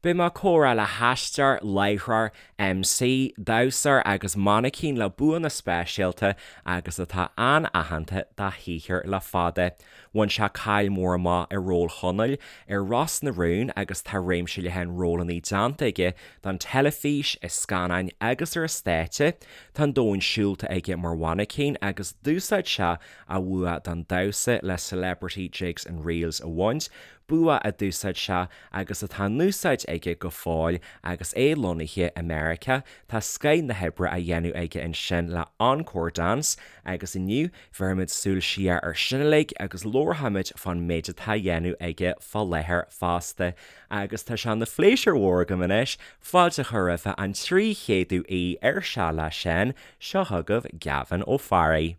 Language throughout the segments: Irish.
Beidh mé ag comhrá le haisteoir, láithreoir, MC, damhsóir agus mainicín le buanna speisialta agus atá an-aitheanta dá shaothar le fada. Bhain sé cáil mhór amach i ról Chonaill ar Ros na Rún agus tá réimse leathan rólanna déanta aige don teilifís, i scannáin agus ar an stáitse. Tá an domhan siúlta aige mar mhainicín agus d'úsáid sé a bhua don damhsa le Celebrity Jigs and Reels a bhaint, bua a d'úsáid sé agus atá in úsáid aige go fóill agus é lonnaithe i Meiriceá. Tá scoith na hoibre á dhéanamh aige ansin le Encore Dance agus inniu bhéarfaimid súil siar ar sin uilig agus labharfaimid fán méid atá á dhéanamh aige fá láthair fosta. Agus tá sé ina phléisiúr mhór agam anois fáilte a chur roimhe an 300ú aoi ar Seal le Seán, seo chugaibh Gavin Ó Fearraigh.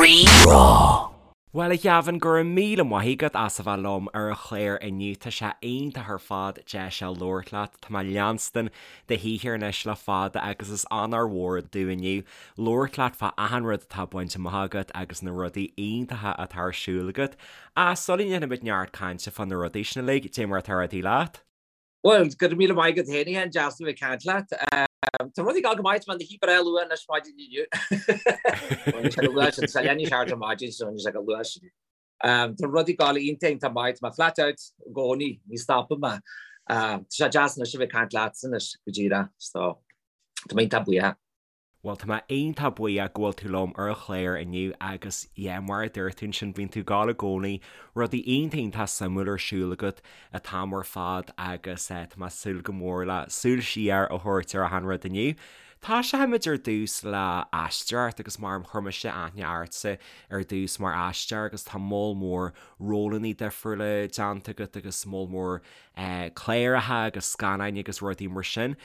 Rí-Rá. Bhuel, a Ghavin, go raibh míle maith agat as a bheith liom ar an chlár inniu. Tá sé iontach ar fad deis a labhairt leat. Tá mé ag leanstan do shaothar anois le fada agus is onóir mhór domh inniu labhairt leat fá achan rud atá bainte amach agat agus na rudaí iontacha atá ar siúl agat. Ach sula ndéanfaimid neart cainte fá na rudaí sin uilig, cad é mar atá rudaí leat? Bhuel, go raibh míle maith agat féin, a Sheáin, deas a bheith ag caint leat. Tá rudaí ag dul go maith, tá mé ina shuí breá luath anois maidin inniu. Bhuel, sé go luath sin, tá leath i ndiaidh a seacht ar maidin, so sé go luath sin. Tá rudaí ag dul iontach, iontach maith, tá mé flat out i gcónaí, ní stopann mé. Tá sé deas anois a bheith ag caint leatsa anois go díreach, so tá mé iontach buíoch. Bhuel, tá mé iontach buíoch go bhfuil tú liom ar an chlár inniu agus yeah, mar a dúirt tú ansin, bíonn tú ag gabháil i gcónaí, rudaí iontach iontach suimiúil ar siúl agat an t-am ar fad agus eh, tá mé ag súil go mór le súil siar a thabhairt ar achan rud inniu. Tosóimid ar dtús le aisteoireacht agus mar chuir mise aithne ortsa ar dtús mar aisteoir agus tá moll mór rólanna difriúla déanta agat agus moll mór eh, cláracha agus scannáin agus rudaí mar sin.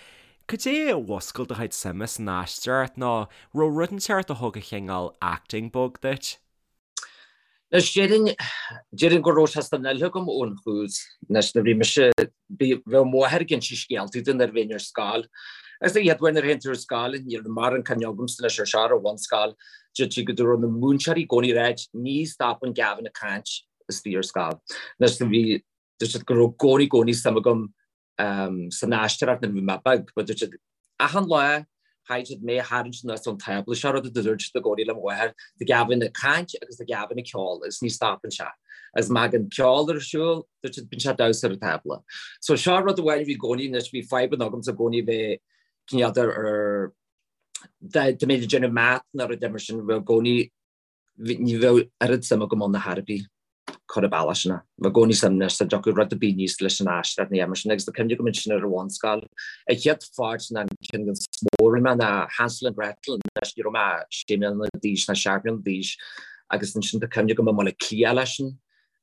Cad é a mhúscail do chuid suime san aisteoireacht nó raibh rud inteacht a thug an chineál acting bug duit? Anois, déarfainn, déarfainn go raibh sé san fhuil agam ón thús. Anois, nuair a bhí mise, bhí, bheadh mo mháthair ag inse scéaltaí dom nuair a bhínn ar scoil. Agus an chéad uair nuair a théann tú ar scoil, ní raibh mórán cuimhne agamsa anois ar seo ar an bhunscoil, deir sí go raibh na múinteoirí i gcónaí ag ráit, ní stopann Gavin ag caint istigh ar scoil. Anois, bhí, dúirt siad go raibh i gcónaí, i gcónaí suim agam san aisteoireacht nuair a bhí mé beag, but dúirt siad achan lá chaithfidh siad mé a tharraingt anuas ón tábla, seo rud a dúirt siad i gcónaí le mo mháthair, tá Gavin ag caint agus tá Gavin ag ceol agus ní stopann sé. Agus má thagann ceol ar siúl, dúirt siad bíonn sé ag damhsa ar an tábla. So seo rud amháin a bhí i gcónaí anois, bhí fadhbanna agamsa i gcónaí bheith cineál de ar dá mbeinn ag déanamh math nó rud mar sin, bheadh i gcónaí Ní bheadh oiread suim agam ann ar chor ar bith, cur an bealach sin. Bheadh i gcónaí suim anois dá dtiocfadh rud ar bith aníos leis an aisteoireacht nó mar sin agus tá cuimhne agam ansin ar an bhunscoil. An chéad pháirt ná an ceann is mó a rinne mé ná Hansel and Gretel anois ní raibh mé sé mbliana d'aois ná seacht mbliana d'aois agus ansin tá cuimhne agam i mBaile Átha Cliath leis sin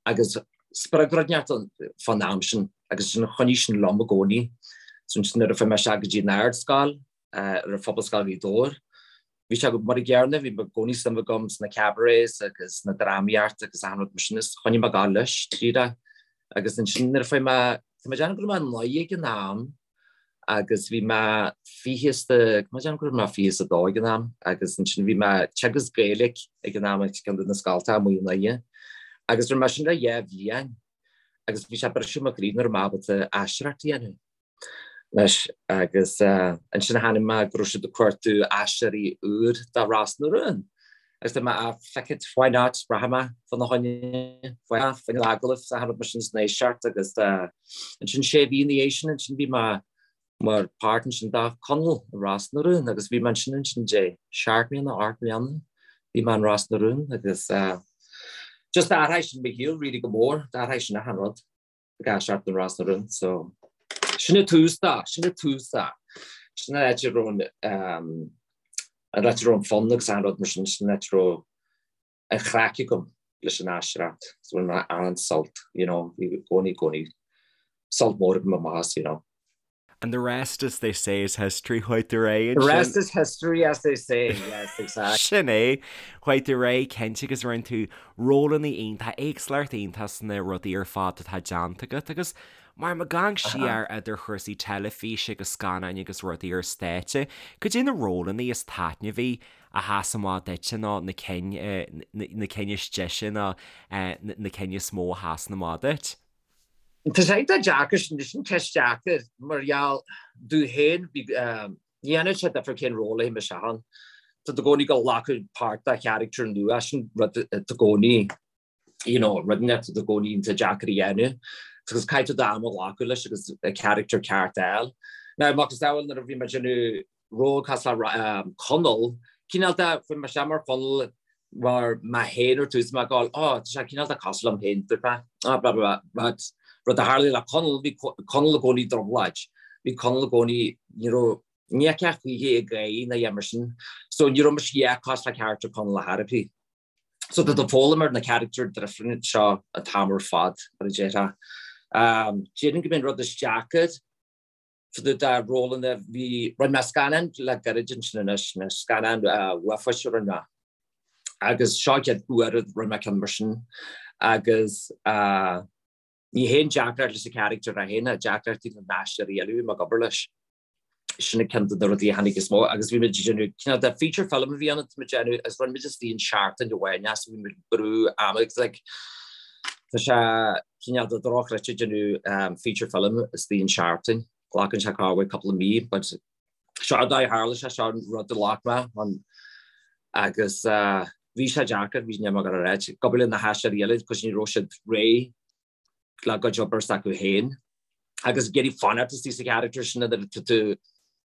agus spreag rud inteacht fán am sin agus sin choinnigh sin liom i gcónaí. So ansin nuair a fuair mé isteach go dtí an ardscoil ar an Phobalscoil Ghaoth Dobhair Bhí sé mar an gcéanna, bhí i gcónaí suim agam sna cabarets agus sna drámaíocht agus achan rud mar sin is choinnigh mé ag gabháil leis tríd é. Agus ansin nuair a fuair mé, tá mé ag déanamh go raibh mé 9 ag an am agus bhí mé fiche is a, tá mé ag déanamh go raibh mé 22 ag an am agus ansin bhí mé ag teagasc Gaeilge ag an am ag ceann de na scoltacha amuigh i nDoire agus rinne mé sin le dhá bhliain agus bhí sé ag briseadh mo chroí nach raibh mé ábalta aisteoireacht a dhéanamh. Anois agus ansin chonaic mé go raibh siad ag cuartú aisteoirí úr do Ros na Rún. Agus dúirt mé, ah, feck it, why not, rachaidh mé fána choinne, fá choinne an agallamh is achan rud mar sin is an éisteacht agus ansin sé mhí ina dhiaidh sin ansin bhí mé mar páirt ansin do Conall i Ros na Rún agus bhí mé ansin ansin dé seacht mbliana, ocht mbliana bhí mé in Ros na Rún agus just d'athraigh sin mo shaol really go mór, d'athraigh sin achan rud. ag aisteoireacht in Ros na Rún. So sin an tús dó, sin an tús dó. Sin an áit a raibh an an áit a raibh an fonn agus an rud mar sin, sin an áit a raibh an chraic agam leis an aisteoireacht. So bhain mé an-sult, you know, bhí i gcónaí, i gcónaí sult mór agam amach as, you know. And the rest, as they say, is history, chuaigh tú ar aghaidh The rest is history, as they say, yes, exactly. Sin é. Chuaigh tú ar aghaidh, cinnte, agus rinne tú rólanna iontach, éagsúlacht iontach sna rudaí ar fad atá déanta agat agus mar ag amharc siar idir chúrsaí teilifíse agus scannáin agus rudaí ar stáitse, cad é na rólanna is taitneamhaí a sheas amach duitse nó na cinn, na cinn is deise nó na cinn is mó a sheasann amach duit? Tá sé iontach deacair sin, sin ceist deacair mar gheall domh féin, ní dhéanann sé difear cén ról a théim isteach ann. Tá tú i gcónaí ag glacadh páirt de charachtar nua, sin rud atá i gcónaí, you know, rud atá i gcónaí iontach deacair a dhéanamh. Agus caithfidh tú d'am a ghlacadh leis agus an charachtar ceart a fháil. Now, macasamhail nuair a bhí mé ag déanamh ról cosúil le Conall, cineál de, chuaigh mé isteach mar Chonall mar mé féin ar tús, mé ag gabháil, oh, tá sé cineál de cosúil liom féin, dúirt mé, ah, blah, blah, blah, but rud a tharlaigh le Conall, bhí Conall i gcónaí i dtrioblóid, bhí Conall i gcónaí, ní raibh, ní fheicfeá choíche ag gáire ná a dhath mar sin, so ní raibh mise a dhath cosúil le charachtar Conall ar chor ar bith. So tá tú ag foghlaim ar na charachtair difriúla seo an t-am ar fad, mar a déarfá. Déarfainn go mb'é an rud is deacair fá dtaobh de rólanna, bhí, rinne mé scannán le gairid ansin anois, na scannán uafáis a rinne mé. Agus seo an chéad uair a rinne mé ceann mar sin. Agus ní haon deacracht leis an charachtar é féin, deacrachtaí na n-aisteoirí eile a bhí mé ag obair leis. Sin an ceann de na rudaí a tháinig is mó agus bhí muid ag déanamh cineál de feature film a bhí ann a bhí muid ag déanamh agus rinne muid istigh in seachtain amháin é so bhí muid ag brú ama agus like tá sé cineál de dochreidte déanamh feature film istigh in seachtain. Glacann sé corruair cúpla mí but seo an dóigh a tharla sé, seo an rud a ghlac mé an agus bhí sé deacair, bhí mé ag rá ag obair le na haisteoirí eile cos ní raibh siad réidh le gcuid obair s'acu féin agus ag iarraidh fanacht istigh sa charachtar sin nuair atá tú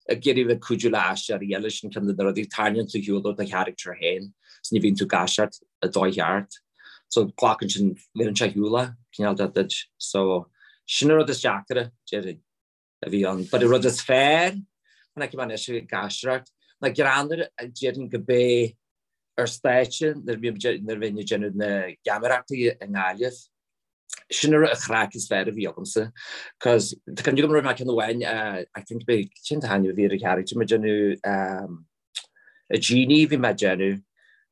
ag iarraidh bheith cuidiú le aisteoirí eile sin ceann de na rudaí tarraingíonn tú ar shiúl ó do charachtar féin so ní bhíonn tú ag aisteoireacht i dóigh cheart. So glacann sin bhíonn sé ar shiúl cineál de duit. So sin an rud is deacaire déarfainn a bhí ann. But an rud is fearr chonaic mé anois ag aisteoireacht ná greannmhar déarfainn go b'é ar stáitse nuair a bhínn ag déanamh na geamaireachtaí i nGaillimh. Sin an chraic is fearr a bhí agamsa. Cos tá cuimhne agam raibh mé ceann amháin I think b'é cén t-ainm a bhí ar an charachtar mé ag déanamh a Genie bhí mé ag déanamh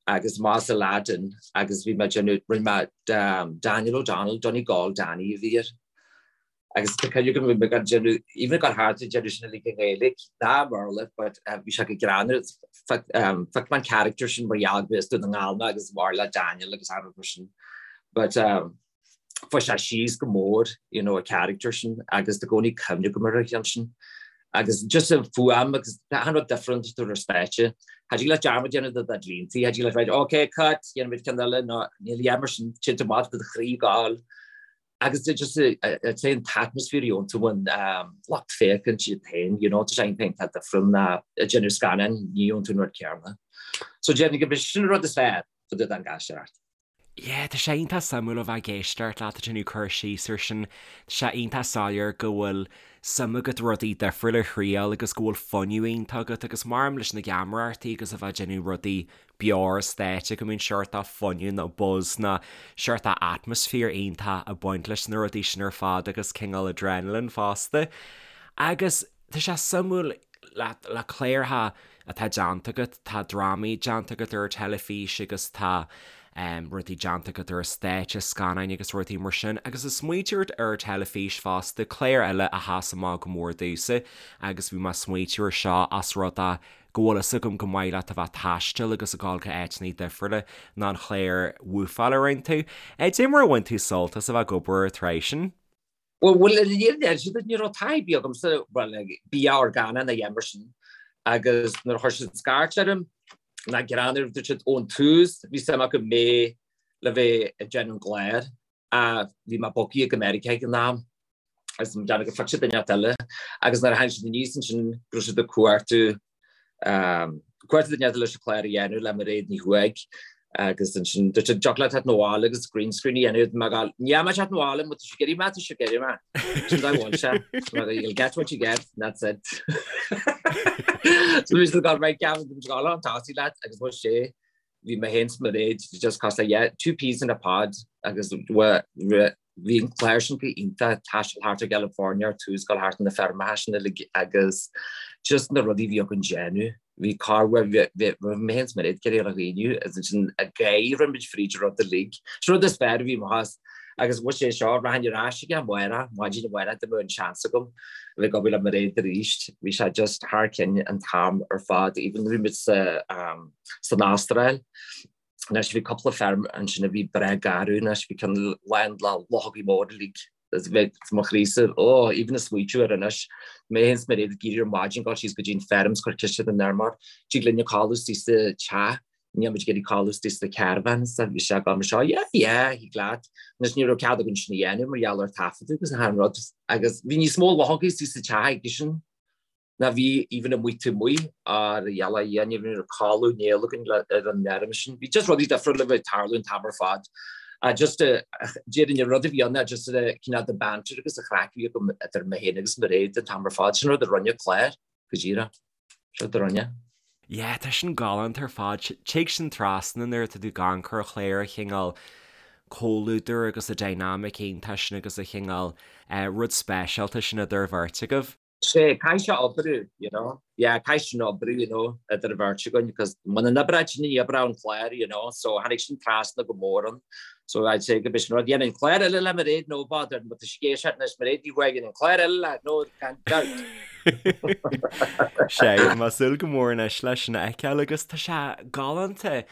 agus más Aladdin agus bhí mé ag déanamh rinne mé Daniel O'Donnell Donegal Danny a bhí air. Agus tá cuimhne agam bhí mé ag déanamh even ag dul thart ag déanamh sin uilig i nGaeilge ná i mBéarla but bhí sé go greannmhar phioc mé an character sin mar gheall go as Dún na nGall mé agus mar le Daniel agus achan rud mar sin but fuair sé síos go mór you know an character sin agus tá i gcónaí cuimhne agam ar an cheann sin agus just an fuaim agus achan rud different tú ar stáitse. Cha dtig leat dearmad déanamh de do línte, cha dtig leat right okay cut, déanfaimid ceann eile nó níl a dhath mar sin téann tú amach do chroí ag gabháil agus just I'd say an t-atmosphere a gheobhann tú ón lucht féachaint iad féin, you know, tá sé iontach difriúil ná ag déanamh scannáin, ní gheobhann tú an rud céanna. So déarfainn go b'shin an rud is fearr fá dtaobh den aisteoireacht. Yeah, tá sé iontach suimiúil a bheith ag éisteacht leat ag déanamh cur síos ar sin. Tá sé iontach soiléir go bhfuil suim agat rudaí difriúla a thriail agus go bhfuil fuinneamh iontach agat agus maram leis na geamaireachtaí agus a bheith ag déanamh rudaí beo ar stáitse go mbíonn seort de fuinneamh nó buzz nó seort de atmosphere iontach ag baint leis na rudaí sin ar fad agus cineál adrenaline fosta. Agus tá sé suimiúil le le cláracha atá déanta agat, tá drámaí déanta agat ar an teilifís agus tá rudaí déanta agat ar an stáitse, scannáin agus rudaí mar sin. Agus ag smaoitiú ort ar an teilifís fosta, clár eile a sheas amach go mór domhsa agus bhí mé ag smaoitiú ar seo as rud é go bhfuil fhios agam go maith leat a bheith ag taisteal agus ag dul go áiteanna difriúla ná an chlár Woofáil a rinne tú. Cad é mar a bhain tú sult as a bheith ag obair ar an tsraith sin? Bhuel, bhuel, níor deir siad ní raibh taithí ar bith agamsa, bhuel, bia orgánach ná a dhath mar sin. Agus nuair a chuir siad scairt orm, ná greannmhar, dúirt siad ón tús, bhí suim acu mé le bheith ag déanamh an clár, ach bhí mé bogtha go Meiriceá ag an am, agus mé ag déanamh gur phioc siad duine inteacht eile, agus nuair a tháinig siad aníos ansin, go raibh siad ag cuartú Cuartú duine eile leis an chlár a dhéanamh le Mairéad Ní Chuaig agus ansin dúirt siad dtiocfadh leat teacht 'na bhaile agus green screen a dhéanamh mé ag gabháil níl mé ag teacht 'na bhaile má tá sibh ag iarraidh mé tá sibh ag iarraidh mé. Sin dá bhfuil sé. You'll get what you get and that's it. So bhí siad ag gabháil right Gavin bhí siad ag gabháil chun tosaigh leat agus bhuel sé bhí mé féin 's Mairéad just cosúil le yeah two peas in a pod agus Bhí an clár sin go hiontach, taisteal thart ar California ar tús, dul thart na feirmeacha sin uilig agus just na rudaí a bhí againn déanamh. Bhí corruair, bhí mé féin 's Mairéad ag iarraidh a dhaoine agus ansin ag gáire rinne muid fríd an rud uilig. Sin rud is fearr a bhí amach as agus bhuel sé seo, rachainn ar ais aige amárach, maidin amárach dá mbeadh an seans agam a bheith ag obair le Mairéad arís. Bhí sé just thar cionn an t-am ar fad, even nuair a bhí muid sa, san Astráil. Anois bhí cúpla feirm ansin a bhí breá garbh anois, bhí ceann lán le luchógaí móra uilig. Bheadh mo chroísa, oh, even ag smaoitiú air anois, mé féin 's Mairéad ag éirí ar maidin, gabháil síos go dtí an feirm 's cur ciste don fheirmeoir, tig linne codladh istigh sa teach, níl muid ag iarraidh codladh istigh sa caravan, 's bhí sé ag gabháil mar seo, yeah, yeah, thig leat. Anois ní raibh cead againn sin a dhéanamh mar gheall ar taifeadadh agus achan rud, agus bhí níos mó luchógaí istigh sa teach aigesean. ná bhí even amuigh taobh amuigh ar gheala a dhéanamh ní raibh codladh néal againn ar an fheirm sin. Bhí just rudaí difriúla a bheith ag tarlú an t-am ar fad. Just déarfainn an rud a bhí ann ná just cineál de banter agus an chraic a bhí agam idir mé féin agus Mairéad an t-am ar fad. Sin rud a rinne clár, go díreach. Sin rud a rinne. Yeah, tá sin galánta ar fad. Tig sin trasna nuair atá tú ag amharc ar chlár an chineál comhluadar agus an dynamic iontach sin agus an chineál rud speisialta sin idir an bheirt agaibh. Sé, caithfidh sé oibriú, you know. Yeah, caithfidh sin oibriú, you know, idir an bheirt againn, because muna n-oibreodh sin, ní oibreodh an clár, you know, so tháinig sin trasna go mór ann. So I'd say go b'shin rud, dhéanfainn clár eile le Mairéad, no bother, but tá sé ag anois, Mairéad Ní Thuathaigh, dhéanfainn clár eile le, no, gan dabht. Sé, tá mé ag súil go mór anois leis sin a fheiceáil agus tá sé galánta,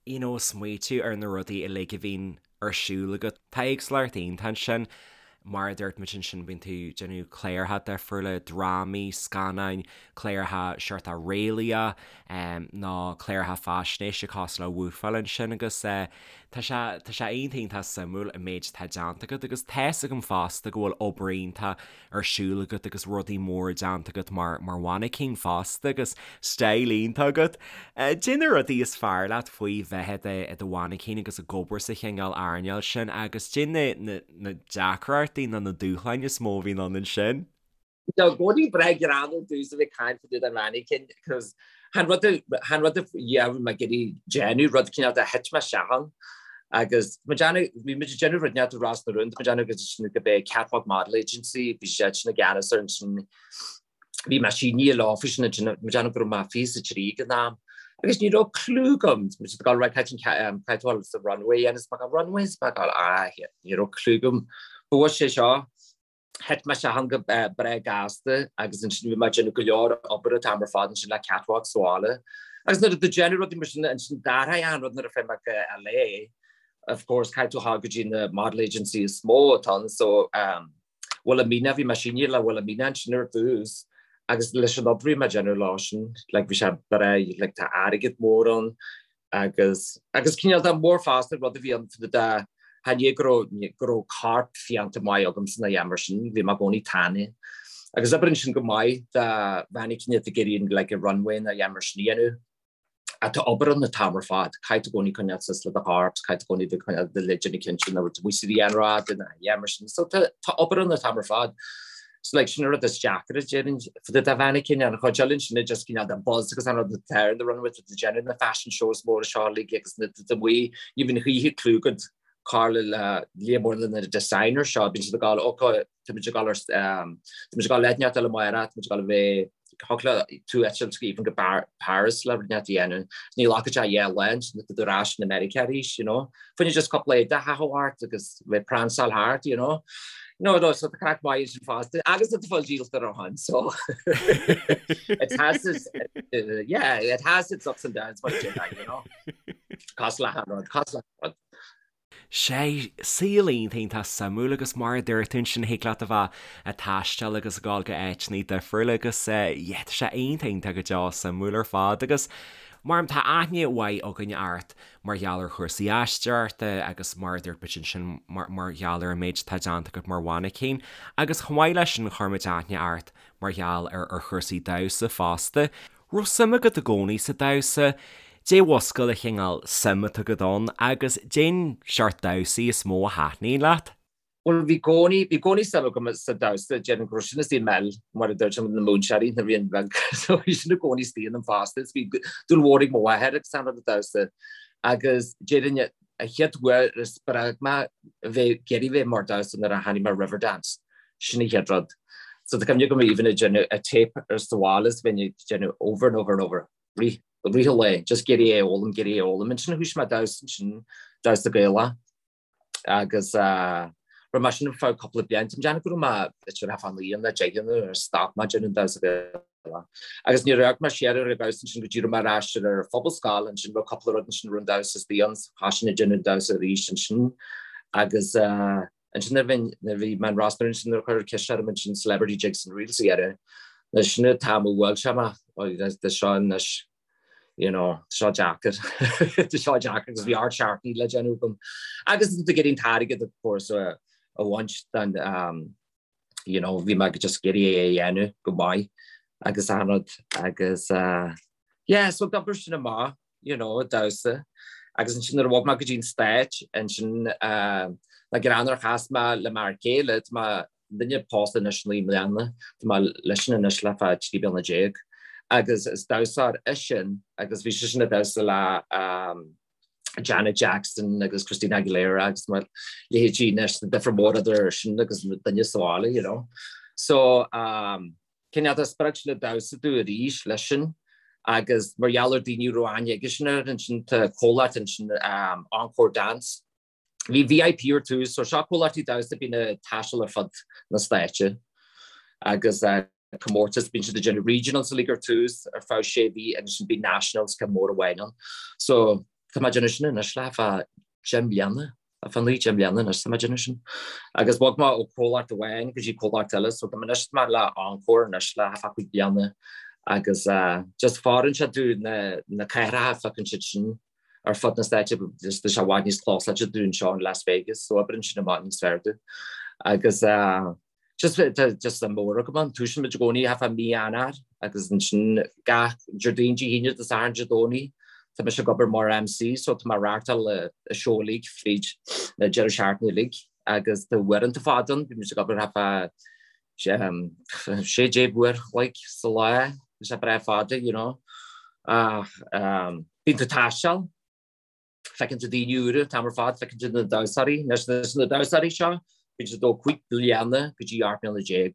you know, smaoitiú ar na rudaí uilig a bhíonn ar siúl agat. Tá éagsúlacht iontach ansin. Mar a dúirt muid ansin, bíonn tú ag déanamh cláracha difriúla, drámaí, scannáin, cláracha seort réalaíoch nó cláracha faisnéise cosúil le Woofáil ansin agus tá sé tá sé iontach iontach suimiúil an méid atá déanta agat agus tá's agam fosta go bhfuil obair iontach ar siúl agat agus rudaí móra déanta agat mar mar mhainicín fosta agus style iontach agat. Cad é na rudaí is fearr leat faoi bheith i do mhainicín agus ag obair sa chineál earnáil sin agus cad é na na deacrachtaí nó na dúshláin is mó a bhíonn ann ansin? Tá i gcónaí breá greannmhar domhsa a bheith ag caint fá dtaobh den mhainicín cos chan rud chan rud a yeah bhí mé ag iarraidh déanamh rud cineál de thit mé isteach ann agus tá mé ag déanamh bhí muid ag déanamh rud inteacht i Ros na Rún tá mé ag déanamh agus sin go b'é Catwalk Model Agency bhí siad sin i gceannas ar ansin bhí mé sínithe leo faoi sin ansin tá mé ag déanamh go raibh mé 23 ag an am agus ní raibh clue agam tá muid ag dul right caithfidh caithfidh tú dul sa runway a dhéanamh is mé ag gabháil runway is mé ag gabháil ah ní raibh clue agam bhuaigh sé seo Thit mé isteach ann go breá gasta agus ansin bhí mé ag déanamh go leor obair an t-am ar fad ansin le Catwalk sa bhaile. Agus nuair a tú ag déanamh rudaí mar sin ansin d'athraigh an rud nuair a fuair mé go LA. Of course caithfidh tú a ghabháil go dtí na model agency is mó atá ann so um, Wilhelmina bhí mé sínithe le Wilhelmina ansin ar dtús agus leis an obair a bhí mé ag déanamh leo sin like bhí sé breá like tá airgead mór ann agus agus cineál de mór fosta rud a bhí ann fá dtaobh de chan é go raibh go raibh corp fiánta maith agamsa ná a dhath mar sin, bhí mé i gcónaí tanaí. Agus oibríonn sin go maith do mhainicín atá ag iarraidh like a runway ná a dhath mar sin a dhéanamh. Ach tá obair ann an t-am ar fad, caithfidh tú i gcónaí coinneáil suas le do chorp, caithfidh tú i gcónaí coinneáil do leideanna cinnte nach bhfuil tú amuigh sa ghrianghraf ná a dhath mar sin. So tá tá obair ann an t-am ar fad. So like sin an rud is deacra déarfainn fá dtaobh de mhainicín an chuid eile ansin just cineál de buzz agus an rud atá ar the runway tá tú ag déanamh na fashion shows móra seo uilig agus na tú amuigh ní bhíonn choíche clue agat cár le líon mór na designers seo bíonn siad ag gabháil ok tá muid ag gabháil ar tá muid ag gabháil le neart eile amárach tá muid ag gabháil a bheith Thiocfadh le tú eitilt even go Paris le rud inteacht a dhéanamh. Ní ghlacfaidh sé dhá lá ansin tá tú ar ais in America arís, you know. Fá choinne just cúpla éide a chaitheamh ort agus bheith pransáil thart, you know. No, no, so tá craic maith sin fosta. Agus tá fáil díolta ar shon, so it has its, uh, yeah, it has its ups and downs, but you know. Cosúil le achan rud, cosúil le achan rud. Sé, saol iontach iontach suimiúil agus mar a dúirt tú ansin thig leat a bheith ag taisteal agus ag dul go áiteanna difriúla agus yeah tá sé iontach iontach go deo suimiúil ar fad agus mar tá aithne mhaith againn ort mar gheall ar chúrsaí aisteoireachta agus mar a dúirt muid ansin mar mar gheall ar an méid atá déanta agat mar mhainicín agus chomh maith leis sin chuir muid aithne ort mar gheall ar ar chúrsaí damhsa fosta. Raibh suim agat i gcónaí sa damhsa? Dé mhuscail an chineál suim atá agat ann agus dén seort damhsaí is mó a thaitníonn leat? Bhuel, bhí gcónaí, bhí gcónaí suim agam sa damhsa, déarfainn go raibh sin istigh i m'fheil, mar a dúirt na múinteoirí nuair a bhínn beag, so bhí sin i gcónaí istigh ionam fosta, is bhí dúil mhór ag mo mháthair agus an rud a damhsa. Agus déarfainn an chéad uair a spreag mé a bheith ag iarraidh bheith mar damhsa nuair a tháinig mé ar Riverdance. Sin an chéad rud. So tá cuimhne agam even ag déanamh a tape ar sa bhaile is bheinn ag déanamh over and over and over, rith, rith an lae, just ag iarraidh é a fhoghlaim, ag iarraidh é a fhoghlaim. Ansin thoisigh mé damhsa ansin, damhsa Gaelach agus eh, raibh mé sin ar feadh cúpla bliain. Tá mé ag déanamh go raibh mé b'fhéidir thart fá naoi nó deich nuair a stop mé déanamh damhsa Gaelach. Agus níor amharc mé siar ar an damhsa ansin go dtí raibh mé ar ais ar an phobalscoil ansin raibh cúpla rud ansin raibh an damhsa istigh ann, thoisigh mé ag déanamh damhsa arís ansin agus eh, Ansin nuair bhí, nuair bhí mé in Ros na Rún ansin nuair a cuireadh ceist orm ansin Celebrity Jigs and Reels a dhéanamh, anois sin an t-am a bhuail sé mé, tá seo anois, you know, tá seo deacair, tá seo deacair agus bhí ard seachtaine le déanamh agam. Agus tá tú ag iarraidh an t-airgead of course a bhaint den, you know, bhí mé just ag iarraidh é a dhéanamh go maith agus an rud agus yeah, so d'oibrigh sin amach. you know, damhsa. Agus ansin nuair a bhog mé go dtí an Stáit, ansin na greann ar chas mé le m'fhear céile, tá muidne pósta anois 9 mbliana, tá mé leisean anois le fá 13 bliana. Agus is damhsóir eisean agus bhí seisean ag damhsa le Janet Jackson agus Christina Aguilera agus a leithéidí anois, tá difear mór idir sin agus duine sa bhaile, you know. So, Cineál de spreag sin an damhsa domh arís leis sin agus mar gheall ar daoine a raibh aithne aigesean air ansin tá comhlacht ansin Encore Dance. Bhí VIP ar tús so seo comhlachtaí damhsa a bíonn ag taisteal ar fud na stáite agus comórtas bíonn siad ag déanamh regionals uilig ar tús ar feadh sé mhí agus ansin bíonn nationals ceann mór amháin ann. So tá mé ag déanamh sin anois le fá 10 mbliana. Ar feadh 9, 10 mbliana anois tá mé ag déanamh sin. Agus bhog mé ó comhlacht amháin go dtí comhlacht eile, so tá mé anois tá mé le Encore anois le thart fá 5 bliana agus just fóireann sé domh na na cathracha feiceann siad sin ar fud na stáite just tá sé i bhfad níos closáilte domh anseo in Las Vegas, so oibríonn sin amach níos fearr domh. Agus Just tá just suim mhór agam ann. Tosaíonn muid i gcónaí thart fá mí Eanáir agus ansin gach Déardaoin, Dé hAoine, Dé Sathairn, Dé Domhnaigh tá mise ag obair mar MC so tá mé ag reáchtáil an seó uilig fríd na deireadh seachtaine uilig agus tá uaireanta fada ann, bíonn muid ag obair thart fá 16 uair a chloig sa lá, tá sé breá fada you know. Ach bíonn tú ag taisteal. Feiceann tú daoine úra an t-am ar fad, feiceann tú na damhsóirí. Anois na damhsóirí seo, bíonn siad ó 5 bliana go dtí 18 mbliana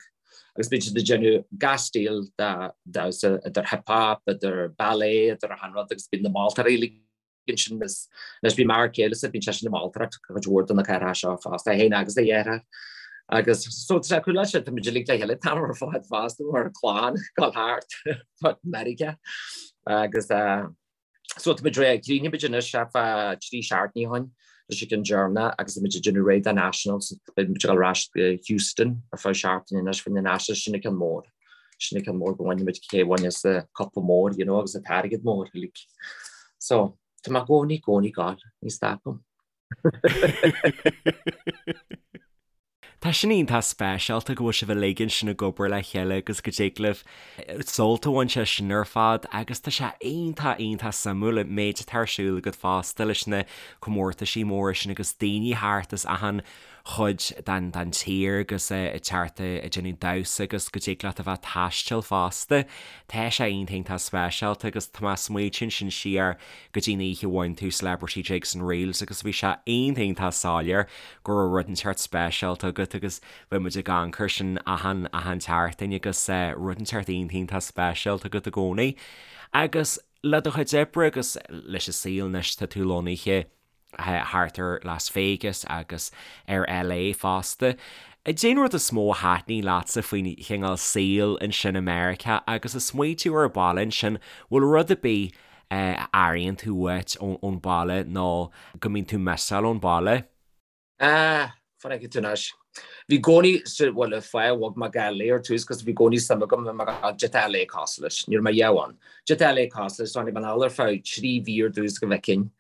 agus bíonn siad ag déanamh gach stíl de dhamhsa, idir hip hop, idir ballet, idir achan rud agus bíonn na moltóirí uilig ansin agus anois bíonn m'fhear céile-sa, bíonn seisean ag moltóireacht cuid mhór de na cathracha seo fosta, é féin agus a dheartháir. Agus so tá sé cool leis, tá muid uilig le chéile an t-am ar fad fosta mar chlann ag dul thart fud Meiriceá agus So tá muid réidh, chríochnaigh muid anois thart fá 3 seachtainí ó shin leis an gceann deireanach agus tá muid ag déanamh réidh do Nationals, beidh muid ag dul ar ais go Houston ar feadh seachtaine anois fá choinne Nationals, sin an ceann mór, sin an ceann mór go bhfaighidh muid cé a bhaineas an cupa mór, you know, agus an t-airgead mór uilig. So, tá mé i gcónaí, gcónaí ag gabháil, ní stopaim. Tá sin iontach speisialta go bhfuil sibh uilig ansin ag obair le chéile agus go dtig libh sult a bhaint as sin ar fad agus tá sé iontach, iontach suimiúil an méid atá ar siúl agat fosta leis na comórtaisí móra sin agus daoine thart as achan chuid den den tír agus ag teacht ag déanamh damhsa agus go dtig leat a bheith ag taisteal fosta. Tá sé iontach, iontach speisialta agus tá mé ag smaoitiú ansin siar go dtí an oíche a bhain tú Celebrity Jigs and Reels agus bhí sé iontach, iontach soiléir go raibh rud inteacht speisialta agat agus bhí muid ag amharc air sin achan, achan tseachtain agus rud inteacht iontach, iontach speisialta agat i gcónaí. Agus le do chuid oibre agus leis an saol anois tá tú lonnaithe thart ar Las Vegas agus ar LA fosta. Cad é an rud is mó a thaitníonn leatsa faoin chineál saoil ansin i Meiriceá agus ag smaoitiú ar an baile ansin, bhfuil rud ar bith a airíonn tú uait ón baile nó go mbíonn tú missáil ón baile? Ah, fan fheicfidh tú anois. Bhí i gcónaí, bhuel, an fáth a bhog mé go LA ar tús, 'cause bhí i gcónaí suim agam i cad é tá LA cosúil leis. Ní raibh mé riamh ann. Cad é tá LA cosúil leis, so tháinig mé anall ar feadh 3 mhí ar dtús go bhfeicfinn.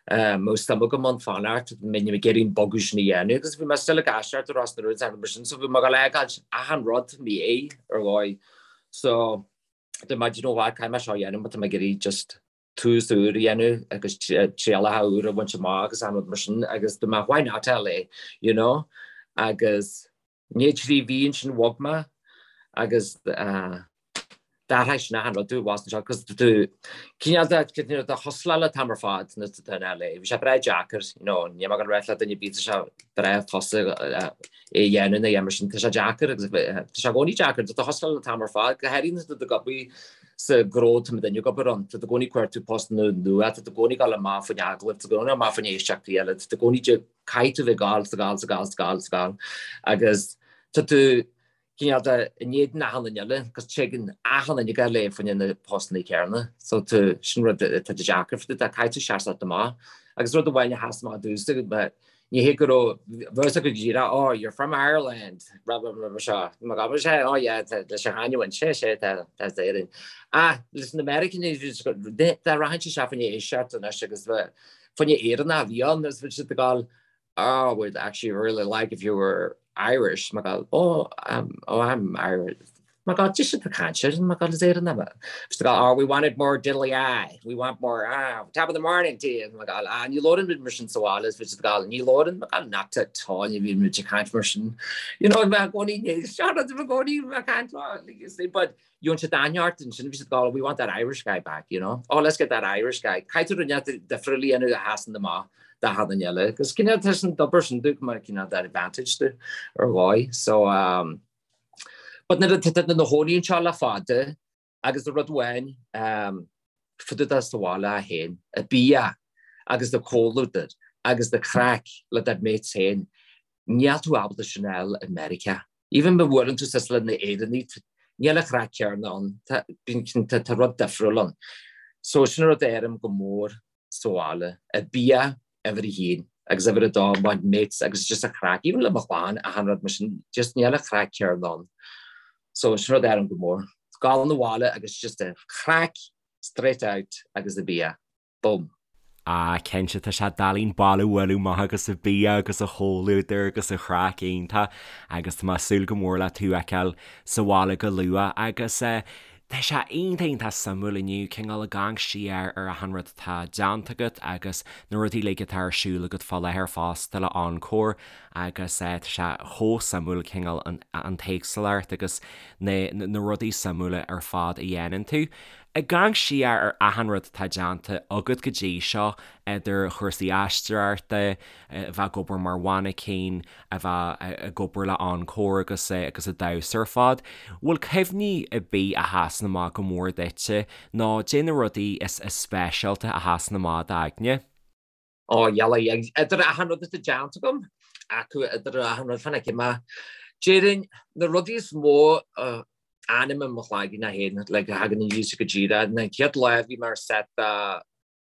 Mbeadh suim agam ann fanacht, mbeinn ag iarraidh an bogadh sin a dhéanamh, agus bhí mé still ag aisteoireacht i Ros na Rún is mar sin, so bhí mé ag dul a fheiceáil achan rud i mo dhiaidh ar dhóigh. So, dúirt mé, do you know what, caithfidh mé seo a dhéanamh má tá mé ag iarraidh just tús úr a dhéanamh agus trialacha úr a bhaint amach agus achan rud mar sin agus dúirt mé why not LA, you know? Agus i ndiaidh 3 mhí ansin bhog mé agus d'athraigh sin achan rud domh bhas anseo cos tú cineál de cineál de hustláil an t-am ar fad nuair atá tú in LA. Bhí sé breá deacair, you know, níl mé ag dul a ráit le duine ar bith tá sé breá fusa é a dhéanamh nó mar sin tá sé deacair agus tá sé i gcónaí deacair, tá tú hustláil an t-am ar fad, go háirithe nuair atá tú ag obair sa ghnó tá muidinne ag obair ann, tá tú i gcónaí ag cuartú postanna nua, tá tú i gcónaí ag dul amach fá choinne agallaimh, tá tú i gcónaí amach fá choinne éisteachtaí eile, tá tú i gcónaí caithfidh tú bheith ag gabháil, 's ag gabháil, 's ag gabháil, 's ag gabháil, 's ag gabháil agus tá tú cineál de in éadan achan duine eile agus téann achan duine go LA fá choinne na postanna céanna so tú sin rud atá deacair fá dtaobh de caithfidh tú seasamh amach agus rud amháin a sheas amach domhsa. Ní hé go raibh bheadh a fhios acu go díreach, oh, you're from Ireland, blah, blah, blah, blah, seo. Má gabhann sé, oh yeah, tá leis an chanúint, sé, sé, tá, tá as Éirinn. Ach leis na Meiriceánaigh, dá rachainnse isteach fá choinne éisteacht anois agus fá choinne Éireannach a bhí ann agus bhí siad ag gabháil, oh, we'd actually really like if you were Irish. Má gabháil, oh, um, oh, I'm Irish. My God, just the caint sin, my God, is Éireannach mé. Bhí siad ag gabháil, oh, we wanted more diddly aye, we want more, ah, top of the morning to you. My God, ah, ní labhrann muid mar sin sa bhaile, bhí siad ag gabháil, ní labhrann, my God, not at all, ní bhíonn muid ag caint mar sin. You know, mé i gcónaí, ní, seo rud i gcónaí, mé caint, but gheobhann siad aithne ort ansin, bhí siad ag gabháil, we want that Irish guy back, you know. Oh, let's get that Irish guy. Caithfidh tú rud inteacht difriúil a dhéanamh a sheasann amach do achan duine eile. Agus cineál tá sin d'obair sin dúinn mar cineál that advantage do ar dhóigh. So, um, But nuair atá tú i do chónaí anseo le fada agus rud amháin fá dtaobh de sa bhaile féin, an bia agus do chomhluadar agus do chraic le do mates féin, níl tú ábalta sin a fháil i Meiriceá. Even má bhuaileann tú suas le na Éireannaigh, níl an chraic céanna ann, tá rud difriúil ann. So sin rud a airim go mór sa bhaile, an bia uimhir a haon agus uimhir a dó my mates agus just an chraic, even le mo chlann achan rud mar sin, just níl an chraic céanna ann. So sin rud a airim go mór. Gabháil 'na bhaile agus just an chraic straight out agus an bia. Boom. Ah cinnte tá sé doiligh an baile a bhualadh amach agus an bia agus an chomhluadar agus an chraic iontach agus tá mé ag súil go mór le tú a fheiceáil sa bhaile go luath agus eh Tá sé iontach iontach suimiúil inniu cineál ag amharc siar ar achan rud atá déanta agat agus na rudaí uilig atá ar siúl agat fá láthair fosta le Encore agus tá sé chomh suimiúil cineál an an t-éagsúlacht agus na na rudaí suimiúla ar fad a dhéanann tú. Ag amharc siar ar achan rud atá déanta agat go dtí seo idir chúrsaí aisteoireachta, a bheith ag obair mar mhainicín, a bheith ag obair le Encore agus agus ag damhsa ar fad. Bhfuil cuimhní ar bith a sheasann amach go mór duitse nó cad é na rudaí is speisialta a sheasann amach i d'aigne? Ó, yeah, idir achan rud atá déanta agam, acu idir achan rud, fan fheicfidh mé. Déarfainn, na rudaí is mó a fhanann i mo chloigeann féin, like, a thagann aníos go díreach, na chéad lá a bhí mé ar set de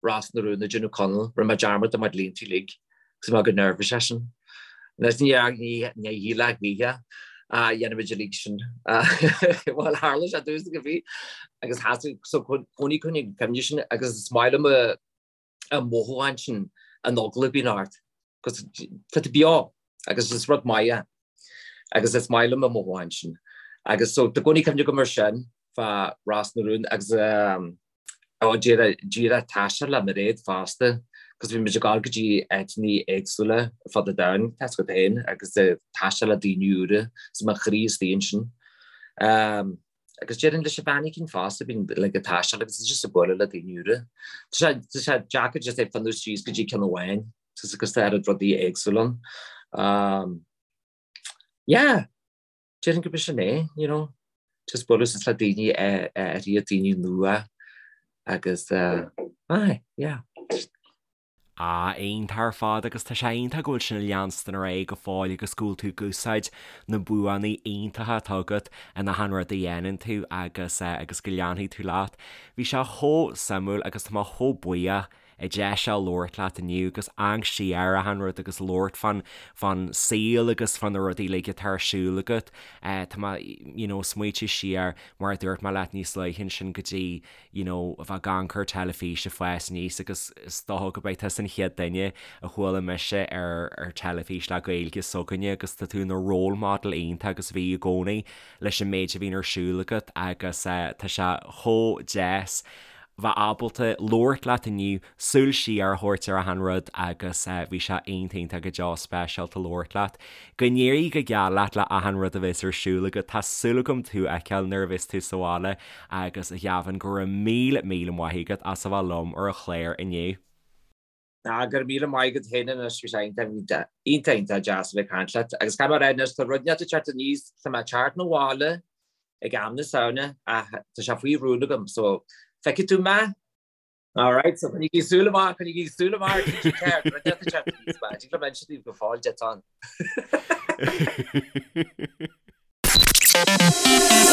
Ros na Rún ag déanamh Conall, rinne mé dearmad de mo línte uilig agus bhí mé go nervous as sin. Anois ní shílfeá choíche a dhéanfaimid uilig sin. Bhuel tharla sé domhsa go bhí agus sheasamh so cónaí coinnigh cuimhne sin agus is maith liom an mothúchán sin an eagla a bhíonn ort cos tá tú beo agus is rud maith é agus is maith liom an mothúchán sin. Agus so tá cónaí cuimhne agam ar sin fá Ros na Rún agus Ó, díreach taisteal le Mairéad fosta, cos bhí muid ag dul go dtí áiteanna éagsúla ar fud an domhain, tá a fhios agat féin, agus taisteal le daoine úra, is mo chroí istigh ansin. Agus déarfainn leis an mhainicín fosta, bíonn like ag taisteal agus just ag bualadh le daoine úra. Tá sé, tá sé deacair just é fanúint síos go dtí ceann amháin, cos tá oiread rudaí éagsúla ann. Yeah! Déarfainn gurb sin é, you know, just bualadh suas le daoine áirithe, daoine nua agus aye, yeah. Ah, iontach ar fad agus tá sé iontach go bhfuil sin ag leanstan ar aghaidh go fóill agus go bhfuil tú ag úsáid na buanna iontacha atá agat in achan rud a dhéanann tú agus agus go leanfaidh tú leat. Bhí sé chomh suimiúil agus tá mé chomh buíoch an deis seo labhairt leat inniu agus amharc siar ar achan rud agus labhairt fán fán saol agus fá na rudaí uilig atá ar siúl agat. Tá mé you know smaoitiú siar mar a dúirt mé leat níos luaithe ansin go dtí you know a bheith ag amharc ar teilifís ag fás aníos agus is dócha go mbeidh tusa an chéad duine a chuala mise ar ar teilifís le Gaeilge s'againne agus tá tú ina role model iontach agus bhí i gcónaí leis an méid a bhíonn ar siúl agat agus tá sé chomh deas bheith ábalta labhairt leat inniu, súil siar a thabhairt ar achan rud agus bhí sé iontach iontach go deo speisialta labhairt leat. Go n-éirí go geal leat le achan rud a bheas ar siúl agat, tá súil agam tú a fheiceáil nuair a bheas tú sa bhaile agus a Ghavin go raibh míle míle maith agat as a bheith liom ar an chlár inniu. Ah, go raibh míle maith agat féin anois, bhí sé iontach iontach iontach deas a bheith ag caint leat agus caithfidh mé a rá anois tá rud inteacht ag teacht aníos, tá mé ag teacht 'na bhaile ag am na Samhna ach tá sé faoi rún agam so feicfidh tú mé. Alright, so coinnígí súil amach, coinnígí súil amach ar TG4, rud inteacht ag teacht aníos, ba, tig liom inse daoibh go fóill duit ann.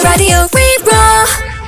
Raidió Rí-Rá.